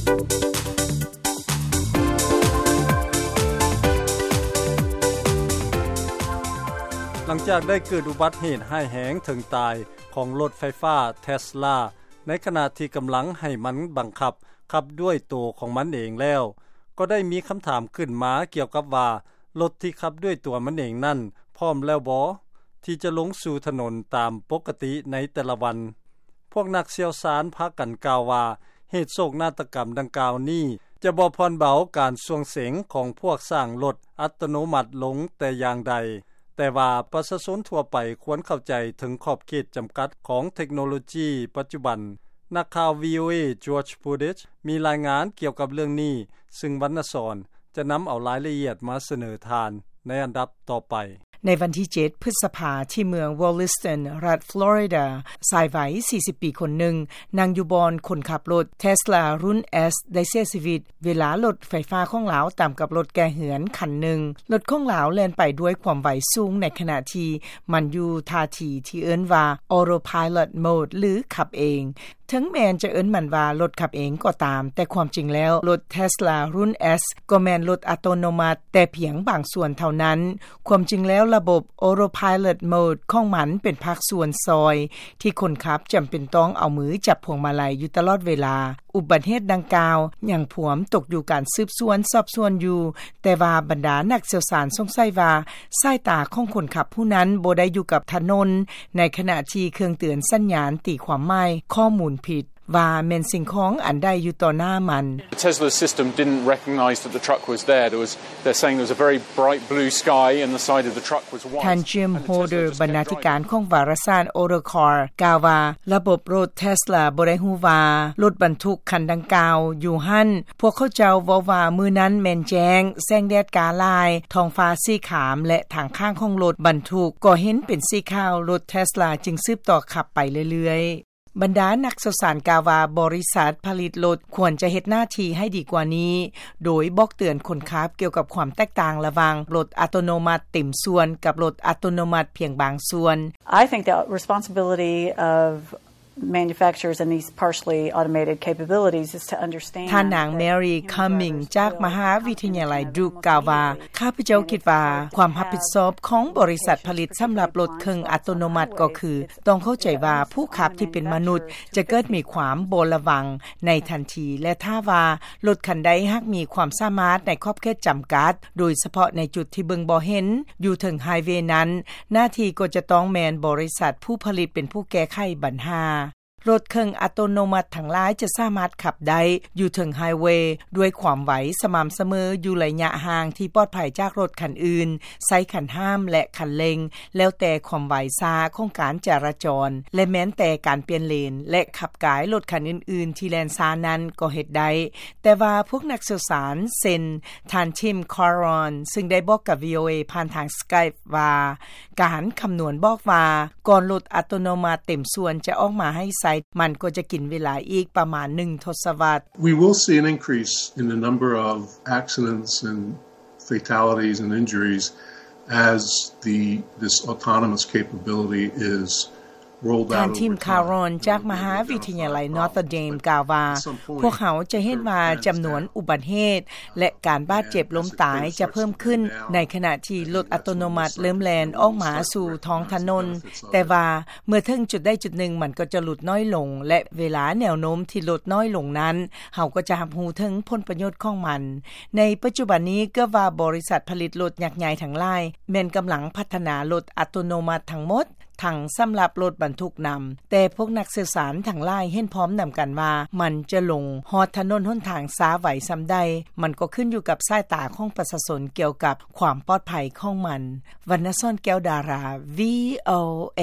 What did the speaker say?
ຫຼັງຈາກໄດ້ເກີດອຸບັດເຫດຮ້າຍແຮງເຖິງຕາຍຂອງລົດໄຟຟ້າເທສລາ ໃນຂະນະທີ່ກຳລັງໃຫ້ມັນບັງຄັບຂັບດ້ວຍໂຕຂອງມັນເອງແລ້ວ, ກໍໄດ້ມີຄຳຖາມຂຶ້ນມາກ່ຽວກັບວ່າ ລົດທີ່ຂັບດ້ວຍຕົວມັນເອງນັ້ນ ພ້ອມແລ້ວບໍ່ ທີ່ຈະລົງສູ່ຖະໜົນຕາມປົກກະຕິໃນແຕ່ລະວັນ? ພວກນັກຊ່ຽວຊານພາກັນກ່າວວ່າ ເຫດໂສກນາฏກຳດັ່ງກ່າວນີ້ ຈະບໍ່ຜ່ອນເບົາການສ່ວງເສັງຂອງພວກສ້າງລົດອັດຕະໂນມັດລົງແຕ່ຢ່າງໃດ, ແຕ່ວ່າປະຊາຊົນທົ່ວໄປຄວນເຂົ້າໃຈເຖິງຂອບເຂດຈຳກັດຂອງເທັກໂນໂລຈີປັດຈຸບັນ. ນັກຂ່າວ ວີໂອເອ George Budish ມີລາຍງານກ່ຽວກັບເລື່ອງນີ້, ຊຶ່ງວັນນະສອນ ຈະນຳເອົາລາຍລະອຽດມາສະເໜີທ່ານໃນອັນດັບຕໍ່ໄປ. ໃນວັນທີເຈັດ ພຶດສະພາ ທີ່ເມືອງ Williston ລັດ Florida, ຊາຍໄວ ສີ່ສິບ ປີຄົນໜຶ່ງ ນັ່ງຢູ່ບ່ອນຄົນຂັບລົດ Tesla ລຸ້ນ S ໄດ້ເສຍຊີວິດ ເວລາລົດໄຟຟ້າຂອງລາວຕຳກັບລົດແກ່ເຮືອນຄັນໜຶ່ງ. ລົດຂອງລາວແລ່ນໄປດ້ວຍຄວາມໄວສູງ ໃນຂະນະທີ່ມັນຢູ່ທ່າທີ່ທີ່ເອີ້ນວ່າ Autopilot Mode ຫຼື ຂັບເອງ. ເຖິງແມ່ນຈະເອີ້ນມັນວ່າລົດຂັບເອງກໍຕາມ, ແຕ່ຄວາມຈິງແລ້ວ ລົດ Tesla ລຸ້ນ S ກໍແມ່ນລົດອັດຕະໂນມັດແຕ່ພຽງບາງສ່ວນເທົ່ານັ້ນ. ຄວາມຈິງແລ້ວ ລະບົບ Autopilot Mode ຂອງມັນເປັນພາກສ່ວນຊ່ອຍ ທີ່ຄົນຂັບຈຳເປັນຕ້ອງເອົາມືຈັບພວງມາໄລຢູ່ຕະຫຼອດເວລາ. ອຸບັດເຫດດັ່ງກ່າວຍັງພວມຕົກຢູ່ການສືບສວນສອບສວນຢູ່, ແຕ່ວ່າບັນດານັກຊ່ຽວຊານສົງໄສວ່າ ສາຍຕາຂອງຄົນຂັບຜູ້ນັ້ນບໍ່ໄດ້ຢູ່ກັບຖະໜົນ, ໃນຂະນະທີ່ເຄື່ອງເຕືອນສັນຍານຕີຄວາມໝາຍຂໍ້ມູນຜິດ ວ່າແມ່ນສິ່ງຂອງອັນໃດຢູ່ຕໍ່ໜ້າມັນ. The Tesla system didn't recognize that the truck was there. There was, they're saying there was a very bright blue sky and the side of the truck was white. ທ່ານ Jim Holder ບັນນາທິການຂອງວາລະສານ Autocar ກ່າວວ່າ ລະບົບລົດ Tesla ບໍ່ໄດ້ຮູ້ວ່າລົດບັນທຸກຄັນດັ່ງກ່າວຢູ່ຫັ້ນ. ພວກເຂົາເຈົ້າເວົ້າວ່າມື້ນັ້ນແມ່ນແຈ້ງ, ແສງແດດກ້າຫຼາຍ, ທ້ອງຟ້າສີຄາມ ແລະ ທາງຂ້າງຂອງລົດບັນທຸກກໍເຫັນເປັນສີຂາວ, ລົດ Tesla ຈຶ່ງສືບຕໍ່ຂັບໄປເລື້ອຍໆ. ບັນດານັກຊ່ຽວຊານກ່າວວ່າ ບໍລິສັດຜະລິດລົດຄວນຈະເຮັດໜ້າທີ່ໃຫ້ດີກວ່ານີ້, ໂດຍບອກເຕືອນຄົນຂັບກ່ຽວກັບຄວາມແຕກຕ່າງລະຫວ່າງລົດອັດຕະໂນມັດເຕັມສ່ວນກັບລົດອັດຕະໂນມັດພຽງບາງສ່ວນ. I think the responsibility of manufacturers and these partially automated capabilities is to understand. ທ່ານນາງ Mary Cumming ຈາກມະຫາວິທະຍາໄລ Duke ກ່າວວ່າ ຂ້າພະເຈົ້າຄິດວ່າຄວາມຮັບຜິດຊອບຂອງບໍລິສັດຜະລິດສຳລັບລົດເຄິ່ງອັດຕະໂນມັດກໍຄື ຕ້ອງເຂົ້າໃຈວ່າຜູ້ຂັບທີ່ເປັນມະນຸດຈະເກີດມີຄວາມບໍ່ລະວັງໃນທັນທີ ແລະ ຖ້າວ່າລົດຄັນໃດຫາກມີຄວາມສາມາດໃນຂອບເຂດຈຳກັດ, ໂດຍສະເພາະໃນຈຸດທີ່ເບິ່ງບໍ່ເຫັນຢູ່ເທິງໄຮເວນັ້ນ, ໜ້າທີ່ກໍຈະຕ້ອງແມ່ນບໍລິສັດຜູ້ຜະລິດເປັນຜູ້ແກ້ໄຂບັນຫາ. ລົດເຄິ່ງອັດຕະໂນມັດທັງຫຼາຍຈະສາມາດຂັບໄດ້ຢູ່ເທິງໄຮເວດ້ວຍຄວາມໄວສະໝ່ຳສະເໝີ ຢູ່ໄລຍະຫ່າງທີ່ປອດໄພຈາກລົດຄັນອື່ນ, ໃຊ້ຄັນຫ້າມ ແລະ ຄັນເລັ່ງ ແລ້ວແຕ່ຄວາມໄວຊ້າຂອງການຈະລາຈອນ ແລະ ແມ່ນແຕ່ການປ່ຽນເລນ ແລະ ຂັບກາຍລົດຄັນອື່ນໆທີ່ແລ່ນຊ້ານັ້ນກໍເຮັດໄດ້. ແຕ່ວ່າພວກນັກຊ່ຽວຊານ ເຊັ່ນ ທ່ານ Tim Caron ຊຶ່ງໄດ້ບອກກັບ ວີ ໂອ ເອ ຜ່ານທາງ Skype ວ່າ ການຄຳນວນບອກວ່າ ກ່ອນລົດອັດຕະໂນມັດເຕັມສ່ວນຈະອອກມາໃຫ້ໃຊ້, ມັນກໍຈະກິນເວລາອີກປະມານໜຶ່ງທົດສະວັດ. We will see an increase in the number of accidents and fatalities and injuries as the, this autonomous capability is ທ່ານ Tim Caron ຈາກມະຫາວິທະຍາໄລ Notre Dame ກ່າວວ່າ ພວກເຮົາຈະເຫັນວ່າຈຳນວນອຸບັດເຫດ ແລະ ການບາດເຈັບລົ້ມຕາຍຈະເພີ່ມຂຶ້ນ ໃນຂະນະທີ່ລົດອັດຕະໂນມັດເລີ່ມແລ່ນອອກມາສູ່ທ້ອງຖະໜົນ, ແຕ່ວ່າເມື່ອເຖິງຈຸດໃດຈຸດໜຶ່ງ ມັນກໍຈະຫຼຸດນ້ອຍລົງ ແລະ ເວລາແນວໂນ້ມທີ່ຫຼຸດນ້ອຍລົງນັ້ນ ເຮົາກໍຈະຮັບຮູ້ເຖິງຜົນປະໂຫຍດຂອງມັນ. ໃນປັດຈຸບັນນີ້ ເກືອບວ່າບໍລິສັດຜະລິດລົດຍັກໃຫຍ່ທັງຫຼາຍ ແມ່ນກຳລັງພັດທະນາລົດອັດຕະໂນມັດທັງໝົດ ທັງສຳລັບລົດບັນທຸກນຳ, ແຕ່ພວກນັກຊ່ຽວຊານທັງຫຼາຍເຫັນພ້ອມນຳກັນວ່າ ມັນຈະລົງຮອດຖະໜົນຫົນທາງຊ້າໄວສ່ຳໃດ, ມັນກໍຂຶ້ນຢູ່ກັບສາຍຕາຂອງປະຊາຊົນກ່ຽວກັບຄວາມປອດໄພຂອງມັນ. ວັນນະສອນ ແກ້ວດາລາ ວີ ໂອ ເອ.